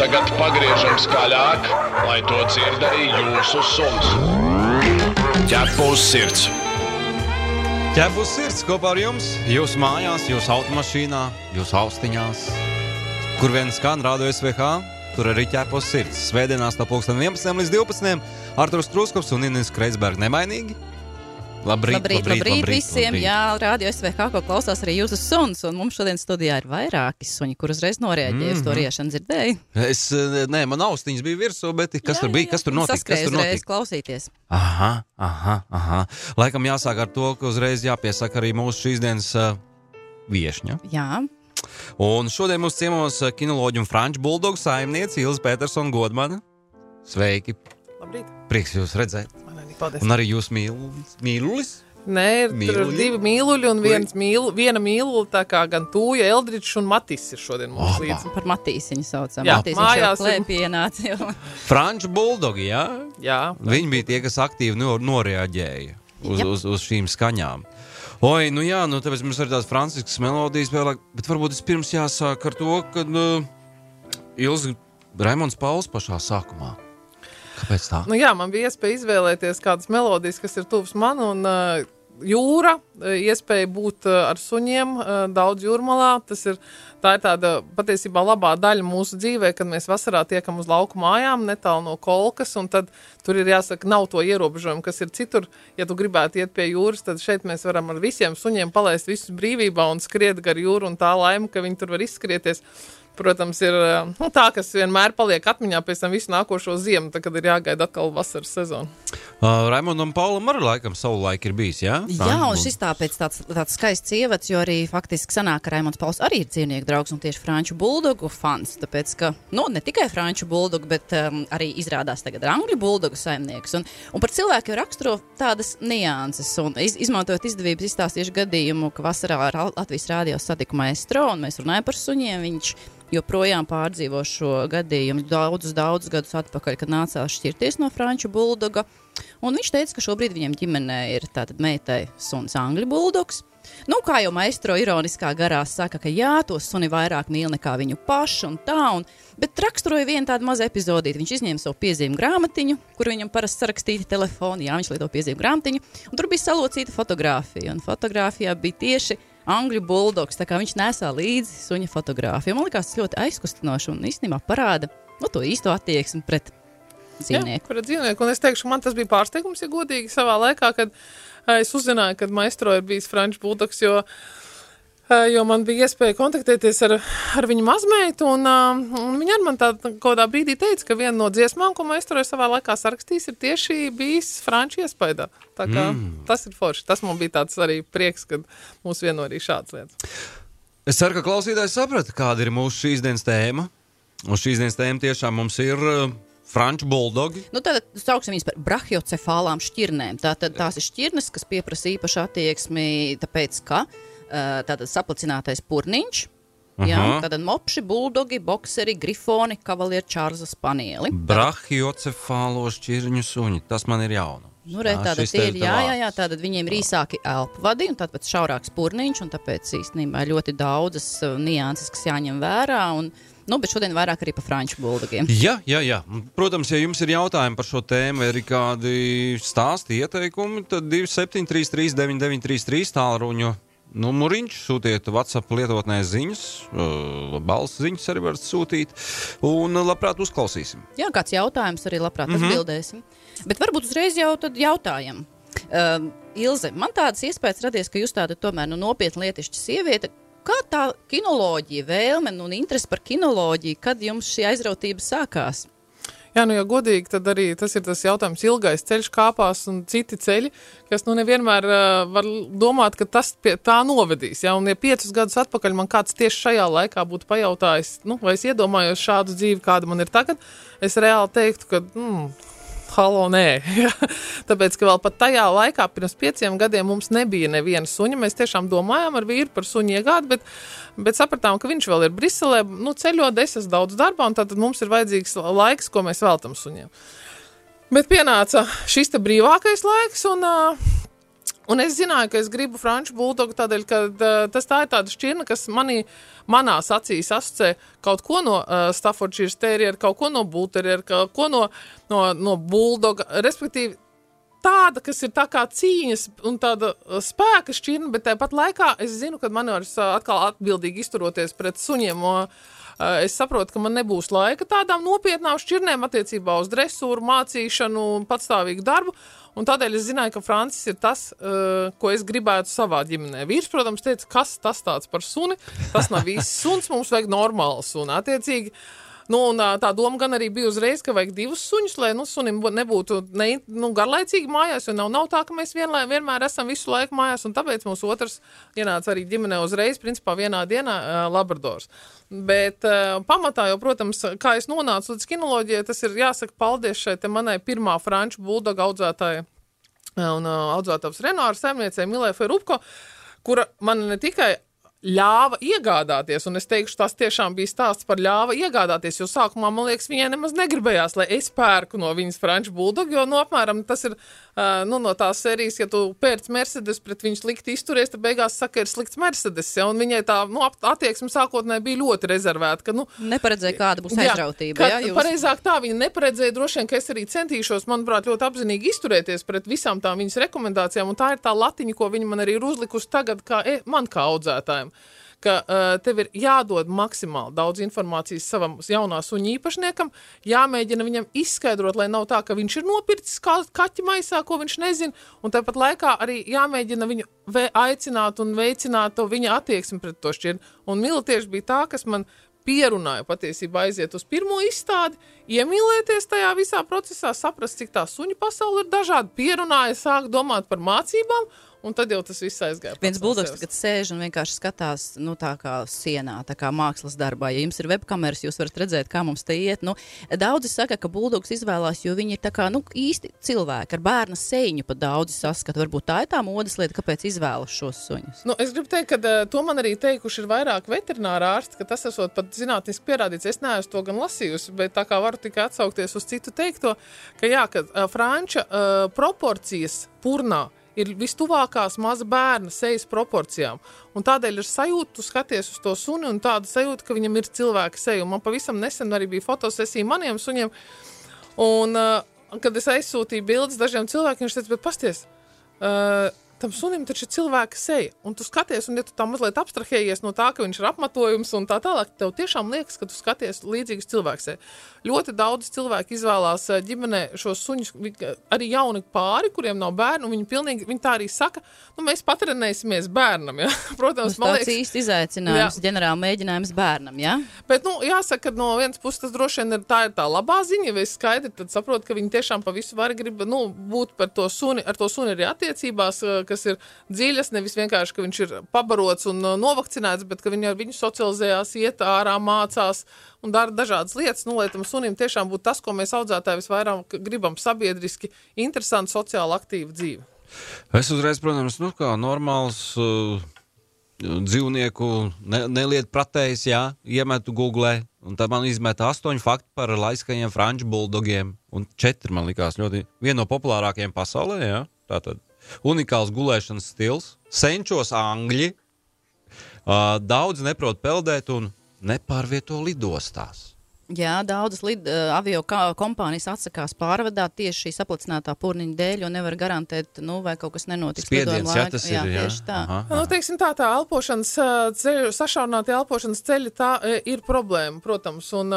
tagad pagriežam skaļāk, lai to dzird arī jūsu suns. Ķepus sirds. Ķepus sirds kopā ar jums, jūsu mājās, jūsu automašīnā, jūsu austiņās. Kur vien skan Radio SVH, tur arī ķepus sirds. Svētdienās no 11 līdz 12. Arturs Truskops un Inis Kreisberg nemainīgi. Labrīt visiem. Jā, Radio SVH, ko klausās arī jūsu suns. Un mums šodien studijā ir vairāki suņi, kur uzreiz noreaģēja uz to riešanu, dzirdēju. Man austiņas bija virsū, bet kas tur bija? Kas tur notika? Saskrēja uzreiz klausīties. Aha. Laikam jāsāk ar to, ka uzreiz jāpiesaka arī mūsu šīs dienas viešņa. Jā. Un šodien mūsu ciemos kinoloģi un franču buldogu saimniece Ilze Petersona Godmane. Sveiki. Labrīt. Prieks jūs redzēt. Paldies. Un arī jūs mīlulis? Nē, tur ir divi mīluļi un viena mīlula, tā kā gan Tūja, Eldričs un Matis ir šodien mums līdzi. Par Matīsiņu saucam. Jā, Matīsiņš mājās jau klēpī ienāca. Franču buldogi, jā? Jā. Viņi bija tie, kas aktīvi noreaģēja uz šīm skaņām. Oi, tāpēc mums ir tās franciskas melodijas vēlāk, bet varbūt vispirms jāsāk ar to, kad Ilze Raimonds Pauls pašā sākumā. Kāpēc tā? Man bija iespēja izvēlēties kādas melodijas, kas ir tuvs man, un jūra, iespēja būt ar suņiem daudz jūrmalā. Tā ir tāda patiesībā labā daļa mūsu dzīvē, kad mēs vasarā tiekam uz lauku mājām, netālu no Kolkas, un tad tur ir jāsaka, nav to ierobežojumu, kas ir citur. Ja tu gribētu iet pie jūras, tad šeit mēs varam ar visiem suņiem palaist visus brīvībā un skriet gar jūru, un tā laima, ka viņi tur var izskrieties. Protams, ir tā, kas vienmēr paliek atmiņā pēc tam visu nākošo ziemu, tad, kad ir jāgaida atkal vasaras sezonu. Raimondam Paulam arī laikam savu laiku ir bijis, jā? Jā, un šis tāpēc tāds skaists ievads, jo arī faktiski sanāk, ka Raimonds Pauls arī ir dzīvnieku draugs un tieši franču buldogu fans, tāpēc, ka, ne tikai franču buldogu, bet arī izrādās tagad angļu buldogu saimnieks. Un par cilvēku jau raksturo tādas nianses, un izmantojot izdevības izstāstīšu gadījumu, ka vasarā ar Latvijas rādio satiku maestro, un mēs runājam par suņiem, viņš joprojām pārdzīvo šo gadījumu daudzus gadus atpakaļ, kad nācās šķirties no franču buldoga. Un viņš teica, ka šobrīd viņiem ģimenē ir tātad meitai suns angļu buldogs. Kā jau maestro ironiskā garā saka, ka jā, to suni vairāk mīl nekā viņu pašu un tā, bet raksturoja vienu tādu mazu epizodīti. Viņš izņēma savu piezīmu grāmatiņu, kur viņam parasti sarakstīti telefoni, viņš lieto piezīmu grāmatiņu, un tur bija salocīta fotogrāfija, un fotogrāfijā bija tieši angļu buldogs, tā kā viņš nesā līdzi suņa fotogrāfiju. Man likās tas ļoti aizkustinoši un īstenībā parāda to īsto attieksmi pret dzīvnieku. Jā, pret dzīvnieku. Un es teikšu, man tas bija pārsteigums, ja godīgi savā laikā, kad es uzzināju, kad maestro ir bijis franču buldogs, jo man bija iespēja kontaktēties ar viņu mazmeitu, un viņa ar man kādā brīdī teica, ka viena no dziesmām, ko maestro savā laikā sarakstījis, ir tieši bijis franču iespaidā. Tā kā tas ir forši. Tas man bija tāds arī prieks, kad mūs vieno arī šāds lietas. Es ceru, ka klausītājs saprata, kāda ir mūsu šīs dienas tēma. Un šīs dienas tēma tiešām mums ir franču buldogi. Tātad sauksim viņas par brahiocefālām šķirnēm. Tātad tās ir šķirnes, kas pieprasa īpašu attieksmi, tāpēc, ka tātad saplacinātais purniņš, tātad mopši, buldogi, bokseri, grifoni, kavalieri, čārza spanieli. Brahiocefālo šķirņu suņi, tas man ir jauna. Tātad tātad viņiem ir īsāki elpvadi un tātad šaurāks purniņš, un tāpēc īstenībā ļoti daudzas nianses, kas jāņem vērā, bet šodien vairāk arī par franču buldogiem. Jā. Protams, ja jums ir jautājumi par šo tēmu, vai ir kādi stāsti, ieteikumi, tad 2733 9933 tālruņu numuriņš, sūtiet WhatsApp lietotnē ziņas, balss ziņas arī varat sūtīt, un labprāt uzklausīsim. Jā, kāds jautājums arī labprāt atbildēsim. Bet varbūt uzreiz jau tad jautājam. Ilze, man tādas iespējas radies, ka jūs tāda tomēr nopietna lietišķa sieviete. Kā tā kinoloģija, vēlme un interesi par kinoloģiju, kad jums šī aizrautība sākās? Jā, ja godīgi, tad arī tas ir tas jautājums ilgais ceļš kāpās un citi ceļi, kas nevienmēr var domāt, ka tas pie tā novedīs. Ja? Un ja 5 gadus atpakaļ man kāds tieši šajā laikā būtu pajautājis, vai es iedomājos šādu dzīvi, kāda man ir tagad, es reāli teiktu, ka halo, nē. Tāpēc, ka vēl pat tajā laikā, pirms 5 gadiem, mums nebija neviena suņa. Mēs tiešām domājām ar vīru par suņu iegādi, bet sapratām, ka viņš vēl ir Briselē, ceļot, es esmu daudz darbā, un tātad mums ir vajadzīgs laiks, ko mēs veltam suņiem. Bet pienāca šis te brīvākais laiks, un Un es zināju, ka es gribu franču buldogu tādēļ, ka tā ir tāda šķirne, kas manās acīs asociē kaut ko no Staffordshire Terrier, kaut ko no Bull Terrier, kaut ko no buldoga, respektīvi tāda, kas ir tā kā cīņas un tāda spēka šķirne, bet tāpat laikā es zinu, ka man var atkal atbildīgi izturoties pret suņiem, es saprotu, ka man nebūs laika tādām nopietnām šķirnēm attiecībā uz dresūru, mācīšanu un patstāvīgu darbu. Un tādēļ es zināju, ka Francis ir tas, ko es gribētu savā ģimenē. Vīrs, protams, teica, kas tas tāds par suni? Tas nav īsts suns, mums vajag normālu suni. Attiecīgi, un tā doma gan arī bija uzreiz, ka vajag 2 suņus, lai sunim nebūtu garlaicīgi mājās, jo nav tā, ka mēs vienmēr esam visu laiku mājās, un tāpēc mums otrs ienāca arī ģimenē uzreiz, principā vienā dienā labradors. Bet pamatā jau, protams, kā es nonācu līdz kinoloģijai, tas ir jāsaka paldies šai te manai pirmā franču buldoga audzētāja un audzētājs Renāra saimniecei Milē Ferupko, kura man ne tikai ļāva iegādāties, un es teikšu, tas tiešām bija stāsts par ļāva iegādāties, jo sākumā, man liekas, viņai nemaz negribējās, lai es pērku no viņas franču buldogu, jo, apmēram, tas ir, no tās sērijas, ja tu pērc Mercedes, pret viņu slikti izturies, tad beigās saka, ir slikts Mercedes, ja, un viņai tā, attieksme sākotnē bija ļoti rezervēta, ka, neparedzēja, kāda būs aizrautība, jā? Pareizāk tā, viņa neparedzēja, droši vien, ka es arī centīšos, manuprāt, ļoti apzinīgi izturēties pret visām tām viņas rekomendācijām, un tā ir tā latiņa, ko viņa man arī ir uzlikusi tagad, man kā audzētājiem. Ka tev ir jādod maksimāli daudz informācijas savam jaunā suņa īpašniekam, jāmēģina viņam izskaidrot, lai nav tā, ka viņš ir nopircis kaķi maisā, ko viņš nezina, un tāpat laikā arī jāmēģina viņu aicināt un veicināt to viņa attieksmi pret to šķirni. Un Mila tieši bija tā, kas man pierunāja patiesībā aiziet uz pirmo izstādi, iemīlēties tajā visā procesā, saprast, cik tā suņu pasaule ir dažāda, pierunāja, sāk domāt par mācībām, un tad jau tas viss aizgāja. Viens buldogs tagad sēž un vienkārši skatās, tā kā sienā, tā kā mākslas darbā. Ja jums ir webkameras, jūs varat redzēt, kā mums te iet. Daudzi saka, ka buldogs izvēlās, jo viņi ir tā kā, īsti cilvēki, ar bērna seiņu pat daudzi saskata. Varbūt tā ir tā modes lieta, kāpēc izvēlas šos suņus. Es gribu teikt, ka to man arī teikuši ir vairāk veterināra ārsti, ka tas esot pat zinātniski pierādīts. Es neesmu to gan lasījusi, bet tā kā varu tikai atsaukties uz citu teikto, ka franča proporcijas purnā ir vistuvākās maza bērna sejas proporcijām. Un tādēļ ir sajūta, tu skaties uz to suni un tāda sajūta, ka viņam ir cilvēka seja. Un man pavisam nesen arī bija fotosesija maniem suņiem. Un, kad es aizsūtīju bildes dažiem cilvēkiem, viņš teica, bet pasties, tam sunim taču ir cilvēka seja. Un tu skaties, un ja tu tā mazliet abstrahējies no tā, ka viņš ir apmetojums un tā tālāk, tev tiešām liekas, ka tu skaties līdzīgas cilvēka seja. Ļoti daudz cilvēki izvēlās ģimenē šos suņus, arī jauni pāri, kuriem nav bērnu, un viņi tā arī saka, mēs patrenēsimies bērnam, ja? Protams, man liekas. Tas īsti izaicinājums, ģenerāli mēģinājums bērnam, ja? Bet, jāsaka, ka no vienas puses tas droši vien ir tā labā ziņa, ja es skaidri, tad saprotu, ka viņi tiešām pa visu var grib, būt par to suni, ar to suni arī attiecībās, kas ir dziļas, nevis vienkārši, ka viņš ir pabarots un novakcinēts, bet ka viņi ar viņu socializējās, iet ārā, mācās un dara dažādas lietas, lai tam sunim tiešām būtu tas, ko mēs audzētāji visvairāk gribam, sabiedriski, interesanti, sociāli aktīva dzīve. Es uzreiz, protams, kā normāls dzīvnieku neliet pratējs, iemetu Googlē, un tad man izmeta 8 fakti par laiskajiem franču buldogiem, un 4 man likās ļoti viena no populārākajiem pasaulē, tātad unikāls gulēšanas stils, senčos angļi, daudz neprot peldēt un nepārvieto lidostās. Jā, daudzas avio kompānijas atsakās pārvadāt tieši šī saplicinātā purniņa dēļ, jo nevar garantēt, vai kaut kas nenotiks. Spiediens, tas ir, tieši tā. Teiksim tā elpošanas ceļu, sašaurinātie elpošanas ceļi, tā ir problēma, protams, un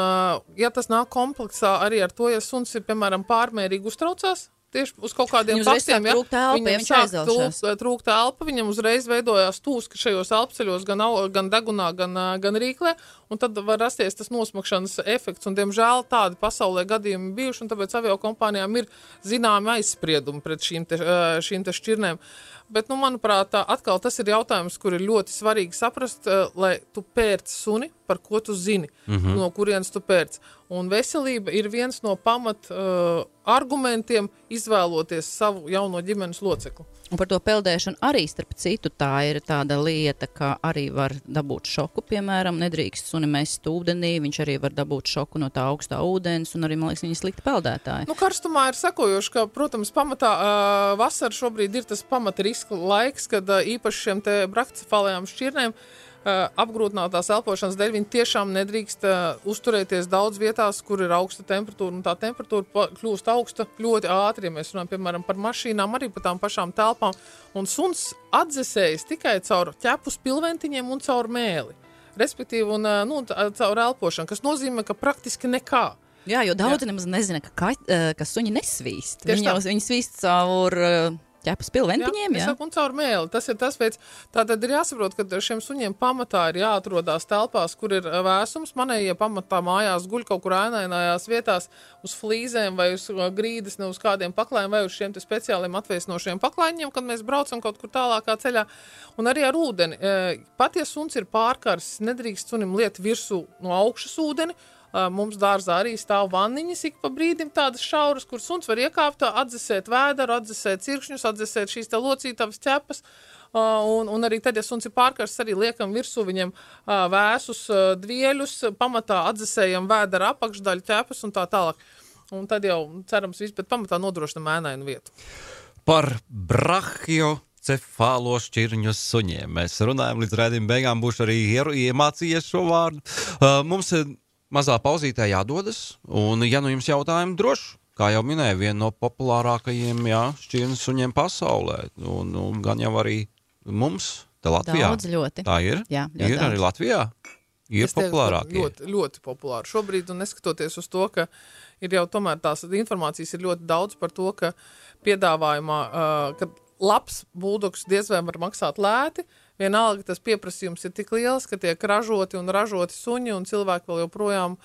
ja tas nāk kompleksā arī ar to, ja suns ir, piemēram, pārmērīgi uztraucās, tieši uz kaut kādiem faktiem, viņam sāk trūkt elpa, viņam uzreiz veidojās tūski šajos elpceļos, gan degunā, gan rīklē, un tad var rasties tas nosmakšanas efekts, un diemžēl tādi pasaulē gadījumi bijuši, un tāpēc aviokompānijām ir zināmi aizspriedumi pret šīm te šķirnēm. Bet, manuprāt, atkal tas ir jautājums, kur ir ļoti svarīgi saprast, lai tu pērc suni, par ko tu zini, no kurienes tu pērc. Un veselība ir viens no pamat argumentiem izvēloties savu jauno ģimenes locekli. Un par to peldēšanu arī, starp citu, tā ir tāda lieta, ka arī var dabūt šoku, piemēram, nedrīkst sunim suni mest ūdenī, viņš arī var dabūt šoku no tā augstā ūdens, un arī, man liekas, viņi slikti peldētāji. Nu, karstumā ir sekojoši, ka, protams, pamatā vasara šobrīd ir tas pamata riska laiks, kad īpaši šiem te brahicefālajām šķirnēm apgrūtinātās elpošanas dēļ viņi tiešām nedrīkst uzturēties daudz vietās, kur ir augsta temperatūra, un tā temperatūra kļūst augsta ļoti ātri, ja mēs runājam, piemēram, par mašīnām, arī par tām pašām telpām, un suns atdzesējas tikai caur ķepu spilventiņiem un caur mēli, respektīvi, un caur elpošanu, kas nozīmē, ka praktiski nekā. Jā, jo daudzi nemaz nezina, ka suņi nesvīst. Viņi svīst caur ķepas pilventiņiem, jā? Un caur mēli. Tas ir tas veids. Tātad ir jāsaprot, ka šiem suņiem pamatā ir jāatrodās telpās, kur ir vēsums. Manējie pamatā mājās guļ kaut kur ēnainājās vietās uz flīzēm vai uz grīdas, ne uz kādiem paklājiem vai uz šiem te speciāliem atvēsinošiem paklājiem, kad mēs braucam kaut kur tālākā ceļā. Un arī ar ūdeni. Pat ja suns ir pārkarsis, nedrīkst sunim liet virsū no augšas ūdeni. Mums dārzā arī stāv vanniņas ik pa brīdim tādas šauras, kur suns var iekāpt, atdzesēt vēderu, atdzesēt cirkšņus, atdzesēt šīs te locītavas ķepas. Un arī tad, ja suns ir pārkarsts, arī liekam virsū viņam vēsus dvieļus, pamatā atdzesējam vēderu apakšdaļu ķepas un tā tālāk. Un tad jau cerams viss, bet pamatā nodrošinam ēnainu vietu. Par brachiocefālo šķirņu suņiem mēs runājam līdz raidījuma beigām, būšu arī iemācījies šo vārdu. Mums mazā pauzītē jādodas, un ja nu jums jautājumi droši, kā jau minēju, viena no populārākajiem šķirņu suņiem pasaulē, un gan jau arī mums, te Latvijā. Daudz ļoti. Tā ir? Jā, ir daudz. arī Latvijā? Ir populārākie? Ļoti, ļoti populāri. Šobrīd, un neskatoties uz to, ka ir jau tomēr tās informācijas ir ļoti daudz par to, ka piedāvājumā, ka labs buldogs diez vai var maksāt lēti, vienalga tas pieprasījums ir tik liels, ka tiek ražoti suņi, un cilvēki vēl joprojām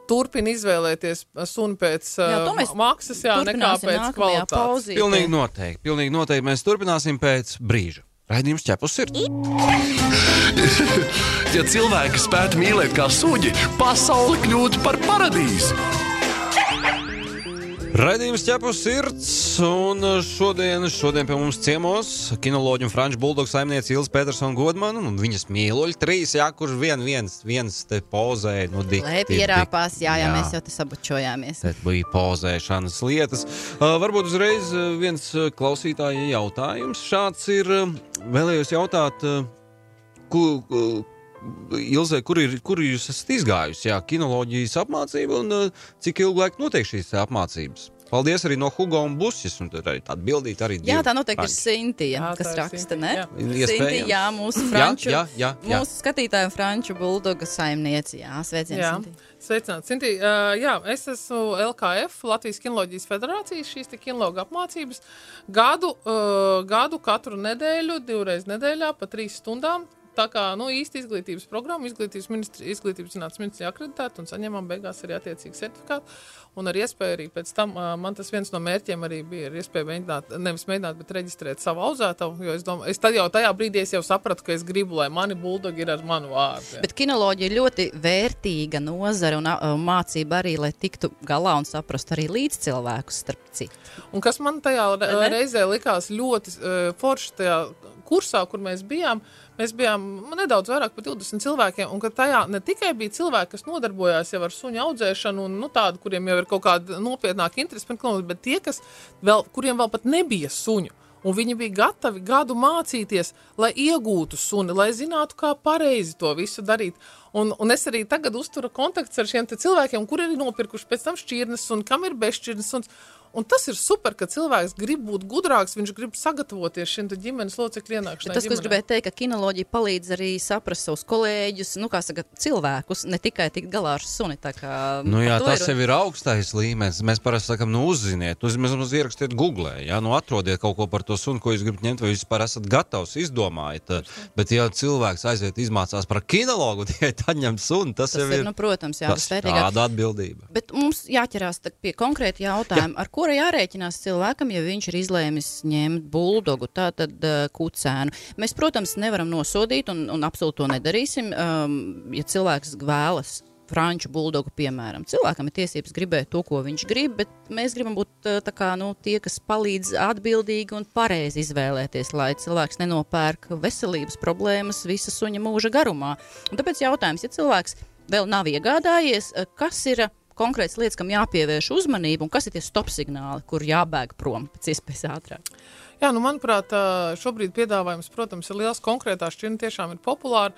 turpina izvēlēties suni pēc maksas, nekā pēc kvalitātes. Pilnīgi noteikti. Mēs turpināsim pēc brīža. Raidījums Ķepus sirds. Ja cilvēki spētu mīlēt kā suģi, pasauli kļūtu par paradīzi. Raidījums Ķepus sirds, un šodien pie mums ciemos kinoloģi un franču buldogu saimniece Ilze Petersona Godmana, un viņas mīluļi 3, kurš viens te pozēja, dikti. Lai pierāpās, jā, mēs jau te sabučojāmies. Te bija pozēšanas lietas. Varbūt uzreiz viens klausītāja jautājums. Šāds ir, vēlējos jautāt, Ilzē, kur jūs esat izgājusi, kinoloģijas apmācība, un cik ilgu laiku notiek šīs apmācības? Paldies arī no Hugo un Busjas, un tad arī tāda bildīt arī divi. Jā, tā noteikti ir Sintija, kas raksta, ne? Sintija, mūsu franču, mūsu skatītāju franču buldoga saimnieci, sveicien, Sintija. Sveicināt, Sintija. Es esmu LKF, Latvijas kinoloģijas federācijas, šīs te kinologa apmācības gadu katru nedēļu, 2 reizes nedēļā, pa 3 stundām. Tā kā, īsti izglītības programma, izglītības zinātnes ministrija akreditēta un saņemam beigās arī attiecīgi sertifikātu. Un ar iespēju arī pēc tam, man tas viens no mērķiem arī bija ar iespēju mēģināt, bet reģistrēt savu audzētavu, jo es domāju, tad jau tajā brīdī es jau sapratu, ka es gribu, lai mani buldogi ir ar manu vārdu. Bet kinoloģija ir ļoti vērtīga nozara un mācība arī, lai tiktu galā un saprastu arī līdz cilvēkus starp citu. Un kas man tajā reizē likās ļoti forši tajā kursā, kur mēs bijām nedaudz vairāk par 20 cilvēkiem, un ka tajā ne tikai bija cilvēki, kas nodarbojās jau ar suņu audzēšanu, un tādu, kuriem jau ir kaut kāda nopietnāka interese, bet tie, kuriem vēl pat nebija suņu, un viņi bija gatavi gadu mācīties, lai iegūtu suni, lai zinātu, kā pareizi to visu darīt. Un es arī tagad uzturu kontakts ar šiem te cilvēkiem, kuri ir nopirkuši pēc tam šķirnes un kam ir bezšķirnes suns. Un tas ir super, ka cilvēks grib būt gudrāks, viņš grib sagatavoties šim te ģimenes locekļu ienākšanai. Tas, ko es gribēju teikt, ka kinoloģija palīdz arī saprast savus kolēģus, cilvēkus, ne tikai tikt galā ar suni. Tā kā, tas jau ir augstais līmenis. Mēs parasti sakam, uzziniet, mēs ierakstiet Googlē, atrodiet kaut ko par to suni, ko jūs gribat ņemt, vai jūs vispār esat gatavs, izdomājiet. Bet ja cilvēks aiziet izmācās par kinologu, tikai tad ņem suni, tas jau ir, protams, tāda atbildība. Bet mums jāķerās pie konkrēti jautājumi, ar kura jārēķinās cilvēkam, ja viņš ir izlēmis ņemt buldogu, tātad kucēnu. Mēs, protams, nevaram nosodīt un absolūti to nedarīsim. Ja cilvēks vēlas franču buldogu, piemēram. Cilvēkam ir tiesības gribēt to, ko viņš grib, bet mēs gribam būt tie, kas palīdz atbildīgi un pareizi izvēlēties, lai cilvēks nenopērk veselības problēmas visa suņa mūža garumā. Un tāpēc jautājums, ja cilvēks vēl nav iegādājies, kas ir konkrētas lietas, kam jāpievērš uzmanību, un kas ir tie stop signāli, kur jābēg prom pēc iespējas ātrāk? Jā, manuprāt, šobrīd piedāvājums, protams, ir liels, konkrētā šķirne tiešām ir populāra,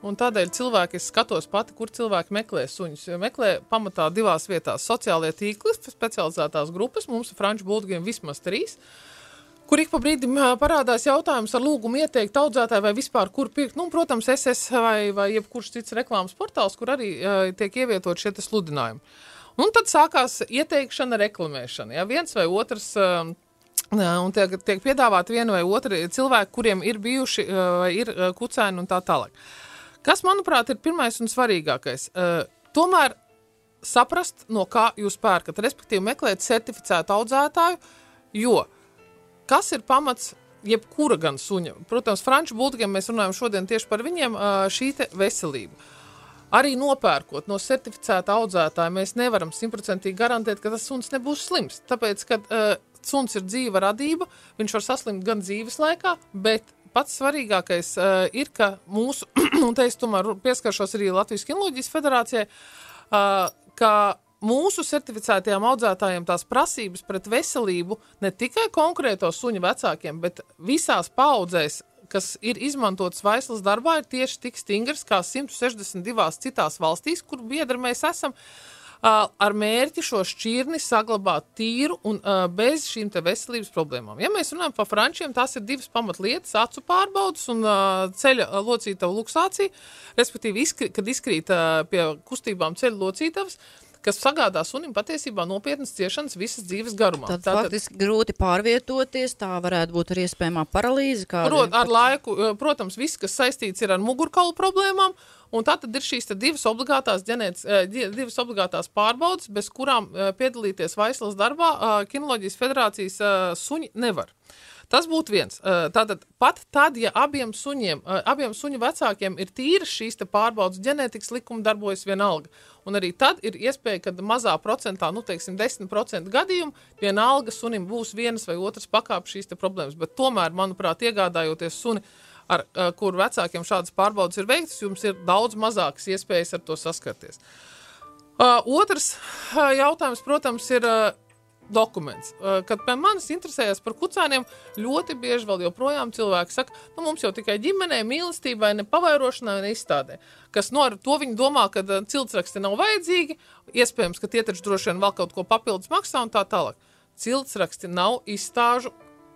un tādēļ cilvēki, es skatos pati, kur cilvēki meklē suņus. Meklē pamatā 2 vietās sociālie tīkli, specializētās grupas, mums ir franču buldogiem vismaz 3, kur ik pa brīdim parādās jautājums ar lūgumu ieteikt audzētāju vai vispār kur pirkt. Protams, SS vai jebkurš cits reklāmas portāls, kur arī tiek ievietot šie sludinājumi. Un tad sākās ieteikšana, reklamēšana. Ja, viens vai otrs, un tiek piedāvāti viena vai otra cilvēki, kuriem ir bijuši vai ir kucēni un tā tālāk. Kas, manuprāt, ir pirmais un svarīgākais? Tomēr saprast, no kā jūs pērkat, respektīvi meklēt certificētu audzētāju, jo kas ir pamats jebkura gan suņa? Protams, franču buldogiem mēs runājam šodien tieši par viņiem šī te veselība. Arī nopērkot no certificēta audzētāja, mēs nevaram 100% garantēt, ka tas suns nebūs slims. Tāpēc, kad suns ir dzīva radība, viņš var saslimt gan dzīves laikā, bet pats svarīgākais ir, ka mūsu, un te es tomēr pieskaršos arī Latvijas Kinoloģijas federācijai, ka mūsu certificētajām audzētājiem tās prasības pret veselību ne tikai konkrēto suņu vecākiem, bet visās paudzēs, kas ir izmantotas vaislas darbā, ir tieši tik stingrs kā 162 citās valstīs, kur biedri mēs esam, ar mērķi šo šķirni saglabāt tīru un bez šīm te veselības problēmām. Ja mēs runājam par frančiem, tās ir 2 pamatlietas, acu pārbaudas un ceļa locītavu luksācija, respektīvi, kad izkrīt pie kustībām ceļa locītavas, kas sagādā sunim patiesībā nopietnas ciešanas visas dzīves garumā. Tad faktiski grūti pārvietoties, tā varētu būt arī iespējamā paralīze. Ar laiku, protams, viss, kas saistīts ir ar mugurkaulu problēmām, un tātad ir šīs 2 obligātās pārbaudas, bez kurām piedalīties vaislas darbā Kinoloģijas federācijas suņi nevar. Tas būtu viens. Tātad pat tad, ja abiem suņu vecākiem ir tīras šīs te pārbaudas, ģenētikas likumi darbojas vienalga. Un arī tad ir iespēja, kad mazā procentā, 10% gadījumu, vienalga sunim būs vienas vai otras pakāpes šīs te problēmas. Bet tomēr, manuprāt, iegādājoties suni, ar kur vecākiem šādas pārbaudas ir veiktas, jums ir daudz mazākas iespējas ar to saskarties. Otrs jautājums, protams, ir dokuments. Kad pie manis interesējas par kucēniem, ļoti bieži vēl joprojām cilvēki saka, mums jau tikai ģimenē, mīlestībai, ne pavairošanai, ne izstādē. Kas ar to viņi domā, ka ciltsraksti nav vajadzīgi, iespējams, ka tie taču droši vien vēl kaut ko papildus maksā un tā tālāk. Ciltsraksti nav izstāžu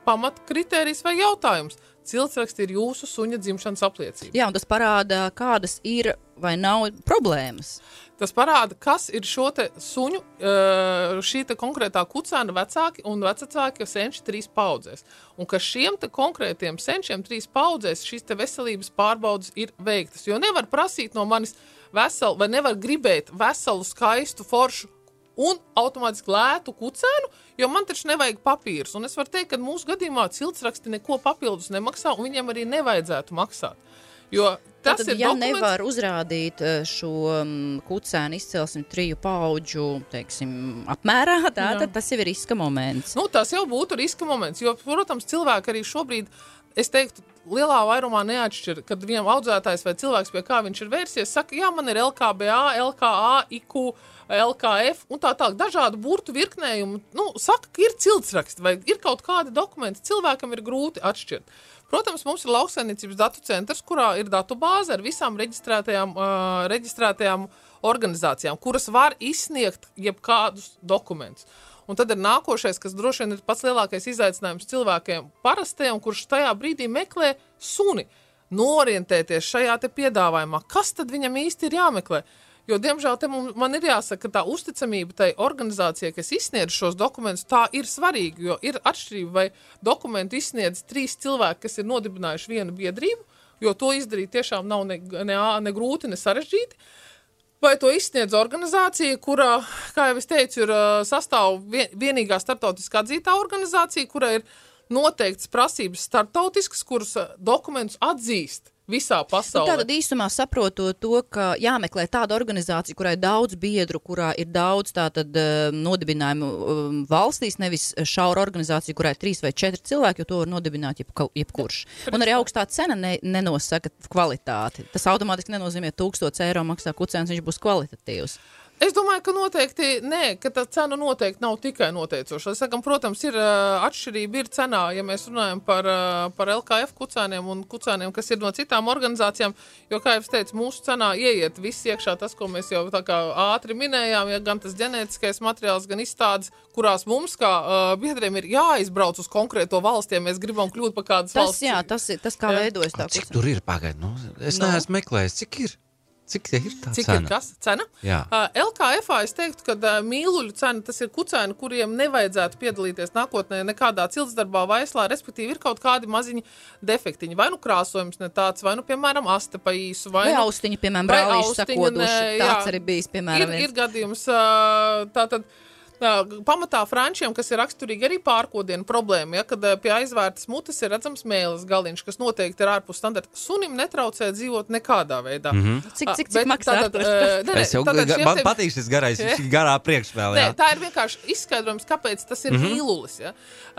pamat kritērijs vai jautājums. Ciltsraksti ir jūsu suņa dzimšanas apliecība. Jā, un tas parāda, kādas ir vai nav problēmas. Tas parāda, kas ir šo te suņu, šī te konkrētā kucēna vecāki un vecāki senči 3 paudzēs. Un ka šiem te konkrētiem senčiem 3 paudzēs šīs te veselības pārbaudas ir veiktas. Jo nevar prasīt no manis veselu, vai nevar gribēt veselu, skaistu, foršu un automātiski lētu kucēnu, jo man taču nevajag papīrus. Un es varu teikt, ka mūsu gadījumā ciltsraksti neko papildus nemaksā, un viņiem arī nevajadzētu maksāt. Jo tas tad, ir ja dokuments, nevar uzrādīt šo kucēnu izcelsmi 3 paudžu, apmērā, tad tas jau ir riska moments. Tas jau būtu riska moments, jo, protams, cilvēki arī šobrīd, es teiktu, lielā vairumā neatšķir, kad viņam audzētājs vai cilvēks, pie kā viņš ir vērsies, saka, jā, man ir LKBA, LKA, IQ, LKF un tā tālāk, dažādu burtu virknējumu. Saka, ka ir ciltsraksti vai ir kaut kādi dokumenti, cilvēkam ir grūti atšķirt. Protams, mums ir lauksaimniecības datu centrs, kurā ir datu bāze ar visām reģistrētajām organizācijām, kuras var izsniegt jebkādus dokumentus. Un tad ir nākošais, kas droši vien ir pats lielākais izaicinājums cilvēkiem parastajiem, kurš tajā brīdī meklē suni, norientēties šajā te piedāvājumā. Kas tad viņam īsti ir jāmeklē? Jo, diemžēl, man ir jāsaka, ka tā uzticamība tai organizācijai, kas izsniedz šos dokumentus, tā ir svarīga, jo ir atšķirība, vai dokumentu izsniedz 3 cilvēki, kas ir nodibinājuši vienu biedrību, jo to izdarīt tiešām nav ne grūti, ne sarežģīti, vai to izsniedz organizācija, kurā, kā jau es teicu, ir sastāv vienīgā starptautiskā atzītā organizācija, kura ir noteikts prasības starptautiskas, kuras dokumentus atzīst visā pasaulē. Tātad īsumā saprotot to, ka jāmeklē tāda organizācija, kurai daudz biedru, kurā ir daudz tātad nodibinājumu valstīs, nevis šaura organizācija, kurai 3 vai 4 cilvēki, jo to var nodibināt jebkurš. Un arī augstā cena nenosaka kvalitāti. Tas automātiski nenozīmē 1000 eiro maksā kucēns, viņš būs kvalitatīvs. Es domāju, ka noteikti, ka tā cena noteikti nav tikai noteicoša. Es sakam, protams, ir atšķirība ir cenā, ja mēs runājam par LKF kucēniem un kucēniem, kas ir no citām organizācijām, jo, kā jau es teicu, mūsu cenā ieiet viss iekšā tas, ko mēs jau tā kā ātri minējām, ja gan tas ģenētiskais materiāls, gan izstādes, kurās mums, kā biedriem, ir jāizbrauc uz konkrēto valsti, ja mēs gribam kļūt par kādas valsts. Jā, tas kā veidojas tā kucēna. Cik tur ir pagaid? Es neesmu meklējis, cik ir? Cik ir tā Cik cena? Ir kas? Cena? Jā. LKF-ā es teiktu, ka mīluļu cena, tas ir kucēni, kuriem nevajadzētu piedalīties nākotnē nekādā ciltsdarbā vaislā, respektīvi ir kaut kādi maziņi defektiņi. Vai nu krāsojums ne tāds, vai nu, piemēram, aste pa īsu. Vai austiņi, piemēram, brālīši sakoduši. Tāds arī bijis, piemēram. Ir gadījums tātad. Pamatā frančiem, kas ir raksturīgi arī pārkodienu problēma, kad pie aizvērtas mutes ir redzams mēles galiņš, kas noteikti ir ārpus standarta. Sunim netraucē dzīvot nekādā veidā. Cik maksā? Man patīk šis garais, šī garā priekšvēl. Tā ir vienkārši izskaidrojums, kāpēc tas ir mīlulis. Ja?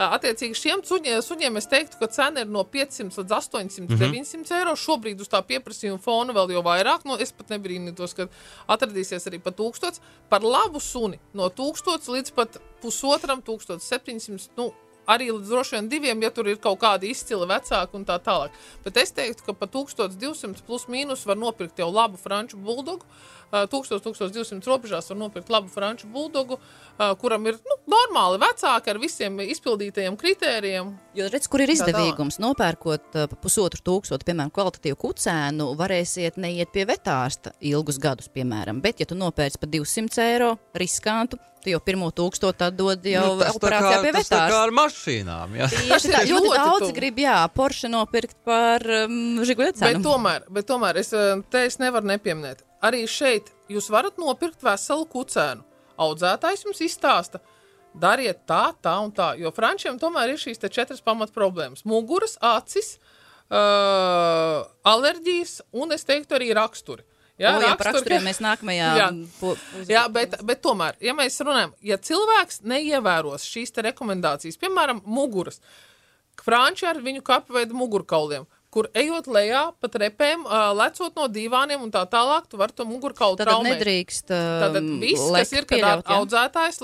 Attiecīgi šiem suņiem es teiktu, ka cena ir no 500 līdz 800, 900 eiro. Šobrīd uz tā pieprasījuma fona vēl jau vairāk. Es pat nebrīnītos, ka atradīsies arī pa 1000. Par labu suni no 1000 līdz pat 1500, arī līdz droši vien 2, ja tur ir kaut kādi izcili vecāki un tā tālāk. Bet es teiktu, ka pa 1200 plus mīnus var nopirkt jau labu franču buldogu. 1200 robežās var nopirkt labu franču buldogu, kuram ir normāli vecāki ar visiem izpildītajiem kritērijiem. Jo redz, kur ir izdevīgums. Nopērkot pa 1500, piemēram, kvalitatīvu kucēnu, varēsiet neiet pie vetārsta ilgus gadus, piemēram. Bet, ja tu nopērci pa 200 eiro riskantu, tu jau 1000 tad dod jau operācijā pie vetārsta. Tas tā kā ar mašīnām, jā. Tieši tā, ļoti daudz grib, Porsche nopirkt par Žiguļa cenu. Bet tomēr es nevaru nepieminēt. Arī šeit jūs varat nopirkt veselu kucēnu. Audzētājs jums izstāsta, dariet tā un tā, jo frančiem tomēr ir šīs 4 pamat problēmas. Muguras, acis, alerģijas un, es teiktu, arī raksturi. Par raksturiem mēs nākamajā... Bet tomēr, ja mēs runājam, ja cilvēks neievēros šīs rekomendācijas, piemēram, muguras, franči ar viņu kapveidu mugurkauliem, kur ejot lejā pa trepēm, lecot no dīvāniem un tā tālāk, tu vari to mugurkaulu traumēt. Tad nedrīkst Tātad viss, kas ir, kad audzētājs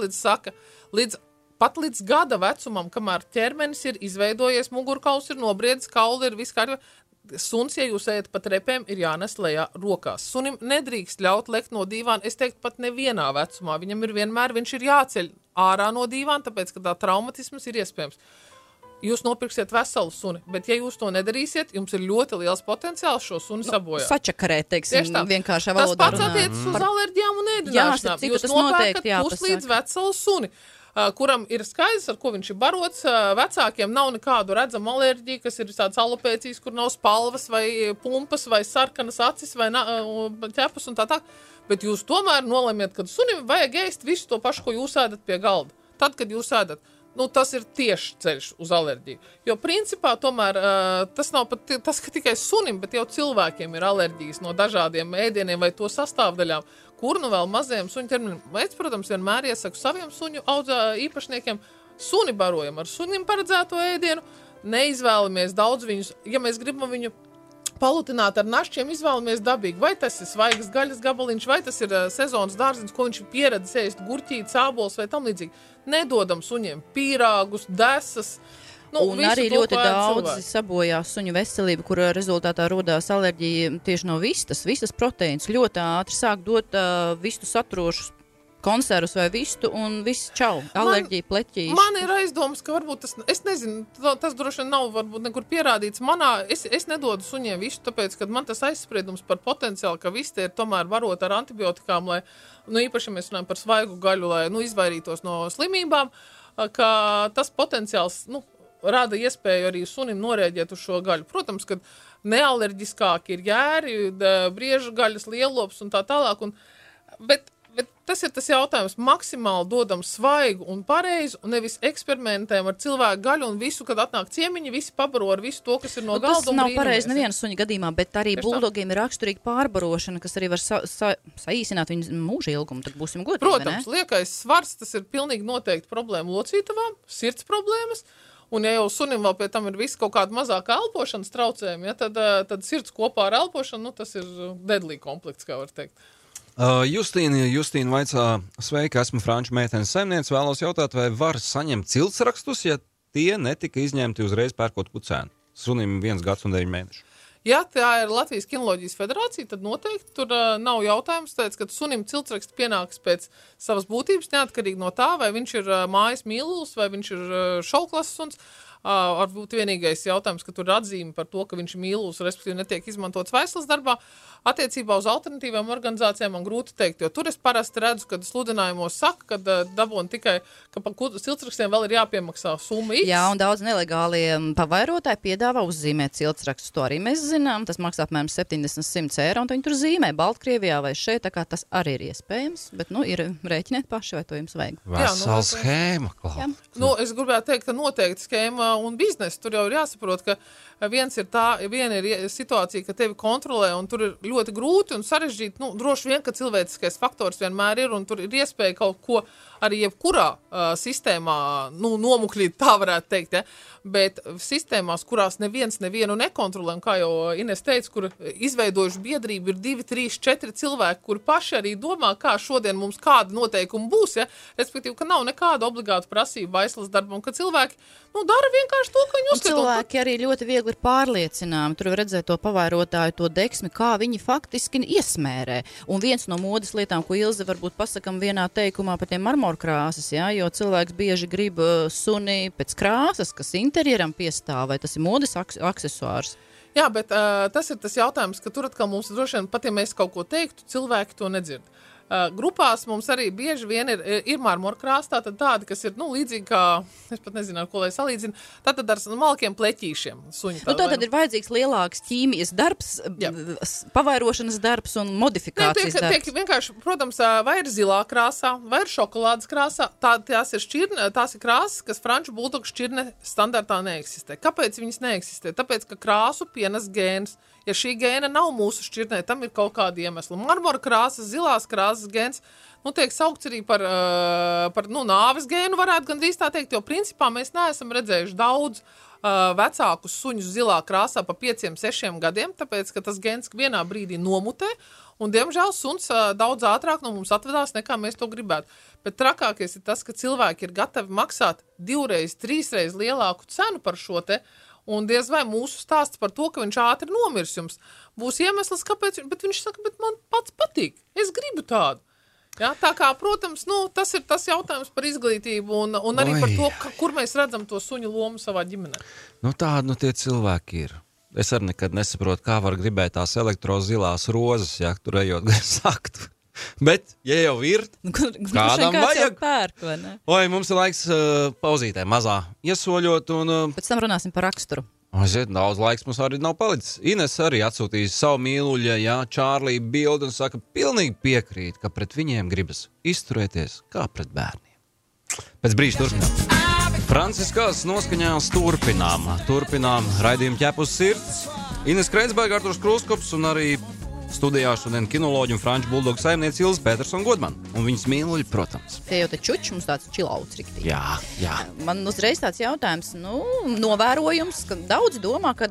pat līdz gada vecumam, kamēr ķermenis ir izveidojies, mugurkauls ir nobriedis, kauli ir viss kārtībā. Suns, ja jūs ejat pa trepēm, ir jānes lejā rokās. Sunim nedrīkst ļaut lekt no dīvāna, es teiktu pat nevienā vecumā. Viņam ir vienmēr, viņš ir jāceļ ārā no dīvāna, tāpēc, ka tā traumatisms ir iespējams. Jūs nopirksiet veselu suni, bet ja jūs to nedarīsiet, jums ir ļoti liels potenciāls šo suni sabojāt. Sačakarēt, teiksim, vienkāršā valodā. Tas pats attiecas uz alerģijām un ēdināšanām. Jūs nopērkat puslīdz veselu suni, kuram ir skaidrs, ar ko viņš ir barots. Vecākiem nav nekādu redzamu alerģiju, kas ir tāds alopēcijas, kur nav spalvas vai pumpas vai sarkanas acis vai ķepus un tā. Bet jūs tomēr nolemiet, ka sunim vajag ēst visu to pašu, ko jūs ēdat pie galda. Tad, kad jūs ēdat, tas ir tieši ceļš uz alerģiju. Jo principā tomēr tas nav pat tas, ka tikai sunim, bet jau cilvēkiem ir alerģijas no dažādiem ēdieniem vai to sastāvdaļām, kur vēl mazajiem suņu ķermenim. Es, protams, vienmēr iesaku saviem suņu īpašniekiem, suni barojam ar sunim paredzēto ēdienu, neizvēlamies daudz viņus, ja mēs gribam viņu palutināt ar našķiem, izvēlamies dabīgi. Vai tas ir svaigas gaļas gabaliņš, vai tas ir sezonas dārziņš, ko viņš ir pieredzis ēst, gurķīt, sābols vai tam līdzīgi. Nedodam suņiem pīrāgus, desas. Un arī ļoti daudzi sabojā suņu veselību, kur rezultātā rodās alerģija tieši no vistas proteīns. Ļoti ātri sāk dot vistu saturošus konservus vai vistu un viss čau. Alerģija, pleķīši. Man ir aizdomas, ka varbūt tas, es nezinu, tas droši vien nav varbūt nekur pierādīts. Es nedodu suņiem vistu, tāpēc, ka man tas aizspriedums par potenciālu, ka viste ir tomēr varot ar antibiotikām, lai, īpaši mēs runājam par svaigu gaļu, lai, izvairītos no slimībām, ka tas potenciāls, rada iespēju arī sunim norēģēt uz šo gaļu. Protams, ka nealerģiskāki ir jēri, briežu gaļas, lielops un tā tālāk, bet Bet tas ir tas jautājums, maksimāli dodam svaigu un pareizu, un nevis eksperimentējam ar cilvēku gaļu un visu, kad atnāk ciemiņi, visi pabaro ar visu to, kas ir no galda. Tas nav pareizi neviena suņa gadījumā, bet arī buldogiem ir raksturīga pārbarošana, kas arī var saīsināt viņu mūža ilgumu, tad būsim godīgi, Protams, liekais svars, tas ir pilnīgi noteikti problēma locītavām, sirds problēmas, un ja jau sunim vēl pie tam ir visi kaut kāda mazāka elpošanas traucējumi, ja, tad sirds kopā ar elpošanu, tas ir deadly komplekts, kā var teikt. Justīna vaicā, sveika, esmu franču meitenes saimniece, vēlos jautāt, vai var saņemt ciltsrakstus, ja tie netika izņemti uzreiz pērkot kucēnu? Sunim 1 gads un 9 mēneši. Ja tā ir Latvijas kinoloģijas federācija, tad noteikti tur nav jautājums, tāpēc, ka sunim ciltsraksts pienāks pēc savas būtības, neatkarīgi no tā, vai viņš ir mājas mīlulis, vai viņš ir šauklases suns. Varbūt vienīgais jautājums, ka tur ir atzīme par to, ka viņš ir mīlulis, respektīvi netiek izmantots vaislas darbā. Attiecībā uz alternatīvām organizācijām man grūti teikt, jo tur es parasti redzu, kad sludinājumos saka, ka dabūna tikai, ka par ciltsrakstiem vēl ir jāpiemaksā summa X. Jā, un daudz nelegālie pavairotāji piedāvā uzzīmēt ciltsrakstus. To arī mēs zinām. Tas maksā apmēram 70-100 eiro, un viņi tur zīmē Baltkrievijā vai šeit, tā kā tas arī ir iespējams. Bet, ir rēķiniet paši, vai to jums vajag. Vesela schēma, klāt. Es gribētu teikt, ka noteikti schēma un biznesa. Tur jau ir jāsaprot, ka viena ir situācija, ka tevi kontrolē, un tur ir ļoti grūti un sarežģīti. Droši vien, ka cilvēciskais faktors vienmēr ir, un tur ir iespēja kaut ko arī jebkurā sistēmā nomukļīt, tā varētu teikt. Ja? Bet sistēmās, kurās nevienu nekontrolē, un kā jau Ines teica, kur izveidojuši biedrību ir 2, 3, 4 cilvēki, kuri paši arī domā, kā šodien mums kāda noteikuma būs, ja? Respektīvi, ka nav nekāda obligāta prasība vaislas darbam, ka cilvēki dara vienkārši to, ka viņi uzskata. Cilvēki arī ļoti viegli ir pārliecināmi. Tur var redzēt to pavairotāju, to deksmi, kā viņi faktiski iesmērē. Un viens no modes lietām, ko Ilze varbūt pasakam vienā teikumā par tiem marmorkrāsas, ja, jo cilvēks bieži grib suni pēc krāsas, kas interjeram piestāv, vai tas ir modes aksesuārs. Jā, bet tas ir tas jautājums, ka tur atkal mums droši vien, pat ja mēs kaut ko teiktu, cilvēki to nedzird. Grupās mums arī bieži vien ir marmorkrāsa, tādi, kas ir līdzīgi kā, es pat nezinu, ar ko lai salīdzinu, tātad ar malkiem pleķīšiem. Tātad ir vajadzīgs lielāks ķīmijas darbs, pavairošanas darbs un modifikācijas darbs. Tiek vienkārši, protams, vai ir zilā krāsā, vai ir šokolādes krāsā, tās ir krāsas, kas franču buldogu šķirne standartā neeksistē. Kāpēc viņas neeksistē? Tāpēc, ka krāsu pienes gēns. Ja šī gēna nav mūsu šķirnē, tam ir kaut kāda iemesla. Marmora krāsas, zilās krāsas gēns, tiek saukts arī par nāves gēnu, varētu gandrīz tā teikt, jo principā mēs neesam redzējuši daudz vecākus suņus zilā krāsā pa 5-6 gadiem, tāpēc, ka tas gēns vienā brīdī nomutē, un, diemžēl, suns daudz ātrāk no mums atvedās, nekā mēs to gribētu. Bet trakākais ir tas, ka cilvēki ir gatavi maksāt 2-3 lielāku cenu par šo te, un diez vai mūsu stāsts par to, ka viņš ātri nomirs jums, būs iemesls, kāpēc, bet viņš saka, bet man pats patīk, es gribu tādu. Ja, tā kā, protams, tas ir tas jautājums par izglītību un arī par to, kur mēs redzam to suņu lomu savā ģimenē. Tādi tie cilvēki ir. Es arī nekad nesaprotu, kā var gribēt tās elektrozilās rozes, ja tur ejot sakt. Bet, ja jau ir, kādam vajag. Pērk, vai ne? Mums ir laiks pauzītē mazā iesoļot un... Pēc tam runāsim par raksturu. Daudz laiks mums arī nav palicis. Ines arī atsūtīja savu mīluļa, Čārlī bildi un saka, pilnīgi piekrīt, ka pret viņiem gribas izturēties kā pret bērniem. Pēc brīža turpinām. Franciskās noskaņās turpinām raidījumu ķepus sirds. Ines Kreitsberga, Arturs Krūskops un arī studijā šodien kinoloģi un franču buldogu saimniece Ilze Petersona Godman. Un viņas mīluļi, protams. Tie jau te čuči, mums tāds čilauts riktīgi. Jā. Man uzreiz tāds jautājums, novērojums, ka daudz domā, ka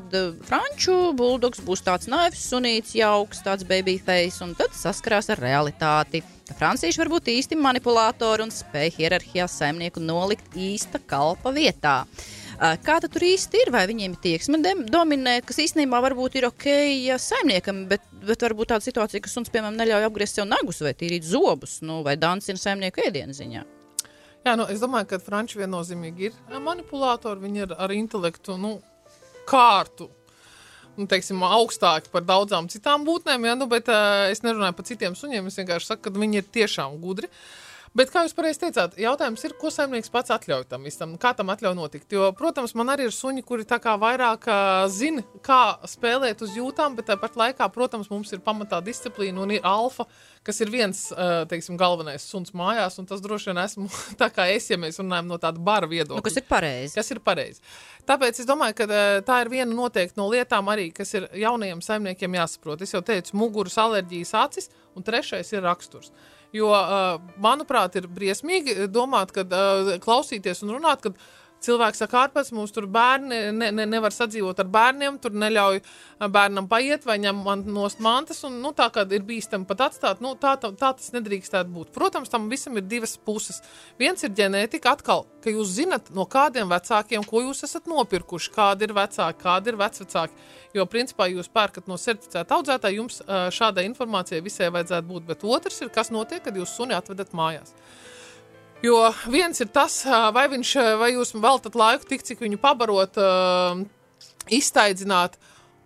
franču buldogs būs tāds naivs sunīts, jauks, tāds baby face, un tad saskarās ar realitāti. Francieši var būt īsti manipulātori un spēj hierarhijā saimnieku nolikt īsta kalpa vietā. Kā tad tur īsti ir? Vai viņiem ir tieksme dominēt, kas īstenībā varbūt ir ok saimniekam, bet varbūt tāda situācija, ka suns, piemēram, neļauj apgriezt sev nagus vai tīrīt zobus, vai dancina saimnieku ēdienu ziņā? Jā, es domāju, ka franči viennozīmīgi ir manipulātori, viņi ir ar intelektu, kārtu, teiksim, augstāki par daudzām citām būtnēm, bet es nerunāju par citiem suņiem, es vienkārši saku, ka viņi ir tiešām gudri. Bet, kā jūs pareizi teicāt, jautājums ir, ko saimnieks pats atļauj tam visam, kā tam atļauj notikt. Jo, protams, man arī ir suņi, kuri tā kā vairāk zina, kā spēlēt uz jūtām, bet tāpat laikā, protams, mums ir pamatā disciplīna un ir alfa, kas ir viens, teiksim, galvenais suns mājās, un tas droši vien esmu tā kā es, ja mēs runājam no tāda bara viedokļa. Nu, kas ir pareizi. Kas ir pareizi. Tāpēc es domāju, ka tā ir viena noteikti no lietām arī, kas ir jaunajiem saimniekiem jāsaprot. Es jau teicu, muguras, alerģijas, acis, un trešais ir raksturs. Jo, manuprāt, ir briesmīgi domāt, kad klausīties un runāt, kad cilvēks saka, ārpēc mums tur bērni nevar sadzīvot ar bērniem, tur neļauj bērnam paiet vai ņem nost mantas, un tā, kad ir bīstami pat atstāt, tā tas nedrīkstētu būt. Protams, tam visam ir divas puses. Viens ir ģenētika, atkal, ka jūs zinat, no kādiem vecākiem, ko jūs esat nopirkuši, kādi ir vecāki, kādi ir vecvecāki. Jo, principā, jūs pērkat no certificēta audzētāja, jums šādai informācijai visai vajadzētu būt, bet otrs ir, kas notiek, kad jūs suni atvedat mājās. Jo viens ir tas, vai jūs veltat laiku tik, cik viņu pabarot, iztaidzināt,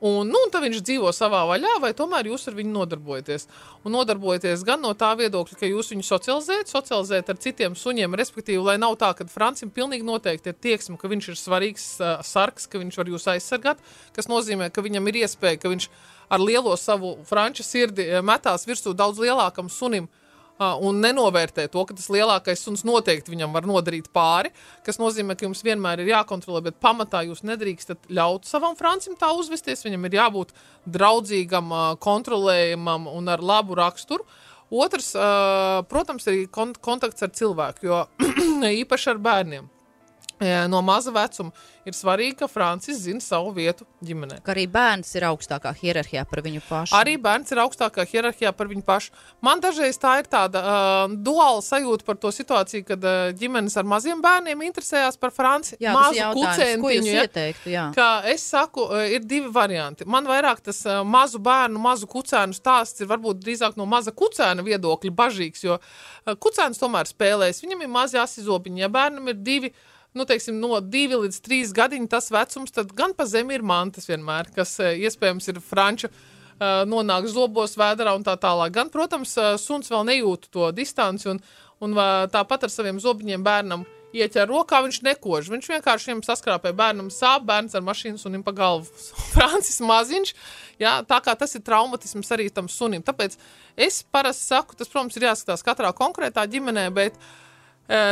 un tad viņš dzīvo savā vaļā, vai tomēr jūs ar viņu nodarbojaties. Un nodarbojaties gan no tā viedokļa, ka jūs viņu socializējat ar citiem suņiem, respektīvi, lai nav tā, ka Francim pilnīgi noteikti ir tieksme, ka viņš ir svarīgs sargs, ka viņš var jūs aizsargāt, kas nozīmē, ka viņam ir iespēja, ka viņš ar lielo savu franču sirdi metās virsū daudz lielākam sunim, un nenovērtē to, ka tas lielākais suns noteikti viņam var nodarīt pāri, kas nozīmē, ka jums vienmēr ir jākontrolē, bet pamatā jūs nedrīkstat ļaut savam Francim tā uzvesties, viņam ir jābūt draudzīgam, kontrolējamam un ar labu raksturu. Otrs, protams, arī kontakts ar cilvēku, jo īpaši ar bērniem. No maza vecuma ir svarīgi, ka Francis zina savu vietu ģimenē. Ka arī bērns ir augstākā hierarhijā par viņu pašu. Arī bērns ir augstākā hierarhijā par viņu pašu. Man dažreiz tā ir tāda duāla sajūta par to situāciju, kad ģimenes ar maziem bērniem interesējās par Franci. Jā, mazu kucēntiņu. Ko jūs ieteiktu, jā? Kā es saku, ir divi varianti. Man vairāk tas mazu bērnu, mazu kucēnu stāsts ir varbūt drīzāk no maza kucēna viedokļa bažīgs, jo kucēns tomēr spēlēs. Viņam ir mazi asizobiņi, ja bērnam ir divi, teiksim, no 2 līdz 3 gadiņu tas vecums, tad gan pa zemi ir mantas vienmēr, kas iespējams ir franča, nonāk zobos, vēderā un tā tālāk. Gan, protams, suns vēl nejūt to distanci un tāpat ar saviem zobiņiem bērnam ieķer rokā, viņš nekož. Viņš vienkārši viņam saskrāpē bērnam sāp, bērns ar mašīnu sunim pa galvu. Francis maziņš, jā, tā kā tas ir traumatisms arī tam sunim. Tāpēc es parasti saku, tas, protams, ir jāskatās katrā konkrētā ģimenē, bet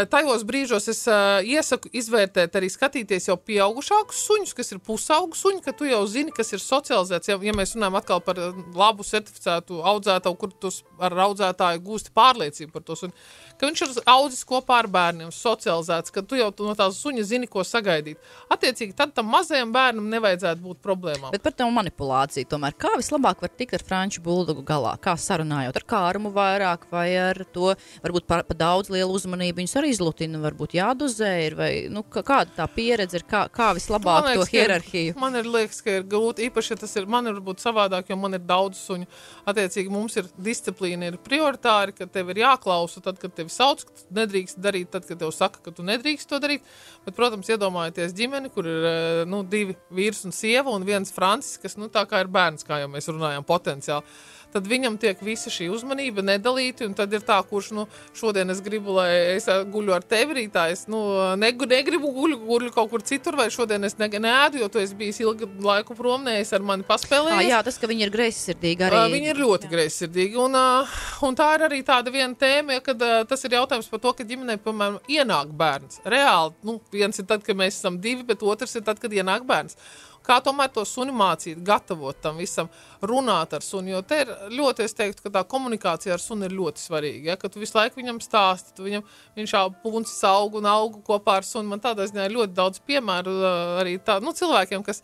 tajos brīžos es iesaku izvērtēt arī skatīties jau pieaugušākus suņus, kas ir pusaugu suņi, ka tu jau zini, kas ir socializēts. Ja mēs runājam atkal par labu certificētu audzētāju, kur tu ar audzētāju gūsti pārliecību par to suņu, ka viņš ir audzis kopā ar bērniem, socializēts, ka tu jau no tās suņa zini, ko sagaidīt. Attiecīgi, tad tam mazajam bērnam nevajadzētu būt problēmām. Bet par tev manipulāciju tomēr, kā vislabāk var tikt ar franču buldogu galā? Kā sarunājot ar kārumu vairāk vai ar to, varbūt pa daudz lielu uzmanību viņus arī izlutina, varbūt jādozē ir, vai, kāda tā pieredze ir, kā vislabāk to hierarhiju? Man liekas, ka ir grūti, īpaši, ja tas ir, man ir varbūt savādāk, jo man ir daudz suņu. Attiecīgi, mums ir disciplīna, ir prioritāri, ka tev ir jāklausa tad, kad tevi sauc, ka tu nedrīkst darīt tad, kad tev saka, ka tu nedrīkst to darīt. Bet, protams, iedomājieties ģimeni, kur ir 2 vīrs un sieva un viens Francis, kas tā kā ir bērns, kā jau mēs runājam, potenciāli. Tad viņam tiek visa šī uzmanība nedalīti, un tad ir tā, kurš, šodien es gribu, lai es guļu ar tevi rītā, es, negribu guļu kaut kur citur, vai šodien es neēdu, jo tu esi bijis ilgu laiku prom, es ar mani paspēlējies. Jā, tas, ka viņi ir greizsirdīgi arī. Viņi ir ļoti greizsirdīgi, un tā ir arī tāda viena tēma, kad tas ir jautājums par to, ka ģimenē, piemēram, ienāk bērns. Reāli, viens ir tad, kad mēs esam 2, bet otrs ir tad, kad ienāk bērns. Kā tomēr to suni mācīt, gatavot tam visam, runāt ar suni, jo te ir ļoti, es teiktu, ka tā komunikācija ar suni ir ļoti svarīga, ja? Ka tu visu laiku viņam stāsti, viņš puncis aug un augu kopā ar suni. Man tādā ziņā ir ļoti daudz piemēru arī tā, cilvēkiem, kas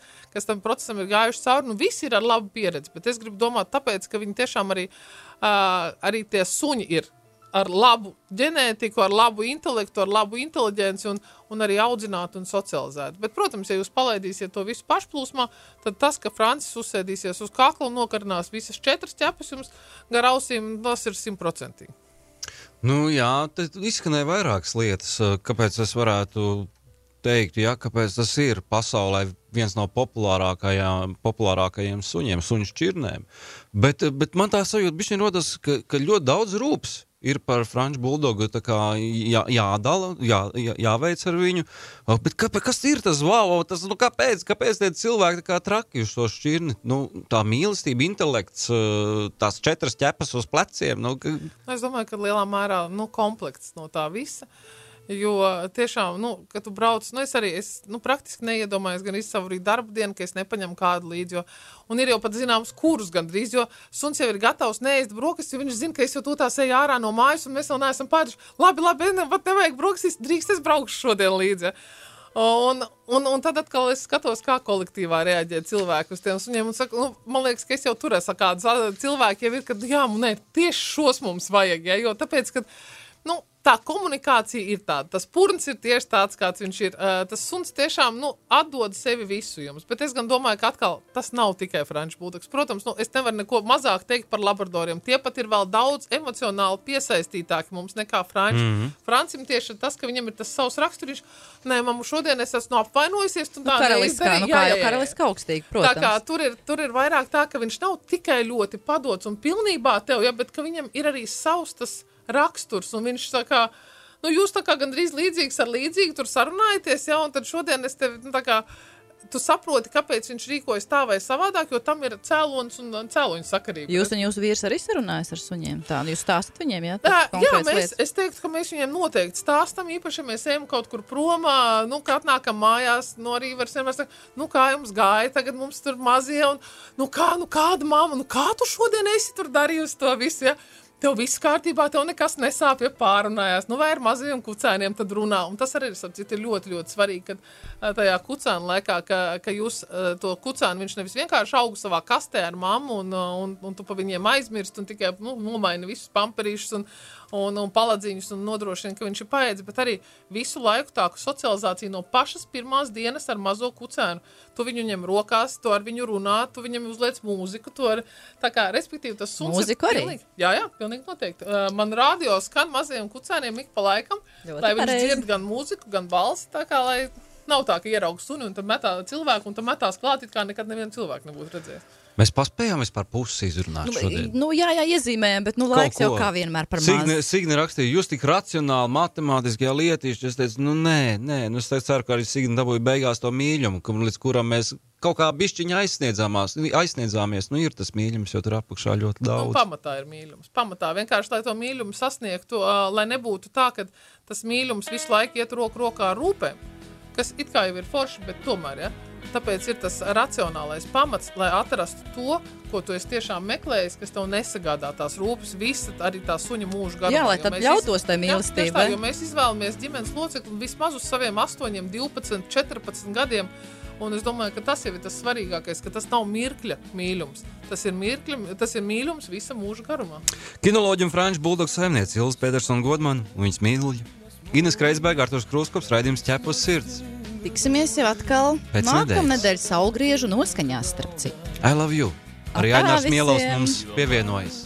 tam procesam ir gājuši cauri, visi ir ar labu pieredzi, bet es gribu domāt tāpēc, ka viņi tiešām arī tie suņi ir ar labu ģenētiku, ar labu intelektu, ar labu inteliģenci un arī audzinātu un socializētu. Bet, protams, ja jūs palaidīsiet to visu pašplūsmā, tad tas, ka Francis uzsēdīsies uz kakla un nokarinās visas 4 ķepes jums gar ausīm, tas ir 100%. Jā, tad izskanēja vairākas lietas, kāpēc es varētu teikt, kāpēc tas ir pasaulē viens no populārākajiem suņiem, suņu šķirnēm. Bet man tā sajūta bišķiņ rodas, ka ļoti daudz rūps ir par franču buldogu tā kā jādala, jāveic ar viņu. Bet kas ir tas wow? Tas, kāpēc tie cilvēki tā kā traki uz to šķirni? Tā mīlestība, intelekts, tās 4 ķepas uz pleciem. Es domāju, ka lielā mērā komplekts no tā visa. Jo tiešām, kad tu brauc, es praktiski neiedomājos gan savu arī darba dienu, ka es nepaņemu kādu līdzi, un ir jau pat zināms kurus gandrīz, jo suns jau ir gatavs neēst brokastis, jo viņš zina, ka es jau tūtās eju ārā no mājas, un mēs vēl neesam pēduši. Labi, pat nevajag brokastis, drīkst es braukšu šodien līdzi. Un tad atkal es skatos, kā kolektīvā reaģē cilvēki uz tiem suņiem, un saku, man liekas, ka es jau tur esmu kāds cilvēki jau ir, kad tieši šos mums vajag, jo tāpēc, ka, tā komunikācija ir tāda, tas purns ir tieši tāds, kāds viņš ir. Tas suns tiešām, atdod sevi visu jums. Bet es gan domāju, ka atkal tas nav tikai franču buldogs. Protams, es nevaru neko mazāk teikt par labradoriem. Tie pat ir vēl daudz emocionāli piesaistītāki mums nekā franči. Francim tieši tas, ka viņam ir tas savs raksturiņš. Nē, mammu, šodien es esmu apvainojusies. Karaliskā, karaliskā augstīgi, protams. Tā kā tur ir vairāk tā, ka viņš nav tikai ļoti padots un pilnībā tev, bet ka viņam ir arī savs tas raksturs, un viņš tā kā, jūs tā kā gandrīz līdzīgs ar līdzīgu tur sarunājaties, un tad šodien es tevi, tu saproti, kāpēc viņš rīkojas tā vai savādāk, jo tam ir cēlonis un cēloņu sakarība. Jūs un jūsu vīrs arī sarunājas ar suņiem? Tā, jūs stāstat viņiem, jā? Es teiktu, ka mēs viņiem noteikti stāstam, īpaši, ja mēs ejam kaut kur promā, ka atnākam mājās, arī var vienmēr saka, kā jums gāja, tagad mums tur mazie, un kāda mamma, kā tu šodien esi tur darījusi to visu, ja? Tev viss kārtībā, tev nekas nesāp, ja pārunājās. Vai ar mazajiem kucēniem tad runā. Un tas arī ir ļoti, ļoti svarīgi, kad tajā kucēnu laikā, ka jūs to kucēnu, viņš nevis vienkārši augu savā kastē ar mammu, un tu pa viņiem aizmirst, un tikai nomaini visus pamperīšus un paladzīņus, un nodrošina, ka viņš ir paēdis, bet arī visu laiku tā socializācija no pašas pirmās dienas ar mazo kucēnu. Tu viņu ņem rokās, tu ar viņu runā, tu viņam uzliec mūziku, tā kā, respektīvi, tas suns mūziku ir arī? Jā, pilnīgi noteikti. Man radio skan mazajiem kucēniem ik pa laikam, lai viņš dzird gan mūziku, gan balsi, tā kā, lai nav tā, ka ierauga suni un tad metā cilvēku un tad metās klāt, it kā nekad nevienu cilvēku nebūtu redzējis. Mēs paspējām vispār pusi izrunāt šodien. Jā, iezīmējam, bet laiks jau kā vienmēr par maz. Signe rakstīja, jūs tik racionāli, matemātiskajā lietīši, es teicu, nē, es ceru, ka arī Signe dabūja beigās to mīļumu, līdz kuram mēs kaut kā bišķiņa aizsniedzāmies. Ir tas mīļums, jo tur apakšā ļoti daudz. Pamatā ir mīļums. Pamatā vienkārši, lai to mīļumu sasniegtu, lai nebūtu tā, ka tas mīļums visu laiku iet roku rokā ar rūpēm, kas it kā jau ir forši, bet tomēr, ja? Tāpēc ir tas racionālais pamats, lai atrastu to, ko tu esi tiešām meklējis, kas tev nesagādā tās rūpes, visa arī tā suņa mūža garumā. Jā, lai tad ļautos tai mīlestībai. Jo mēs izvēlamies ģimenes locekli vismaz uz saviem 8, 12, 14 gadiem, un es domāju, ka tas jau ir tas svarīgākais, ka tas nav mirkļa mīļums. Tas ir mīļums visa mūža garumā. Kinoloģi un franču buldogu saimniece Ilze Pētersona Godmana un viņas mīļuļi. Ines Kreisberga, Arturs Krūskops, raidījums Ķepa uz sirds. Tiksimies jau atkal nākamnedēļ saulgriežu noskaņās, starp citu. I love you. Arī Ainārs Mielovs mums pievienojas.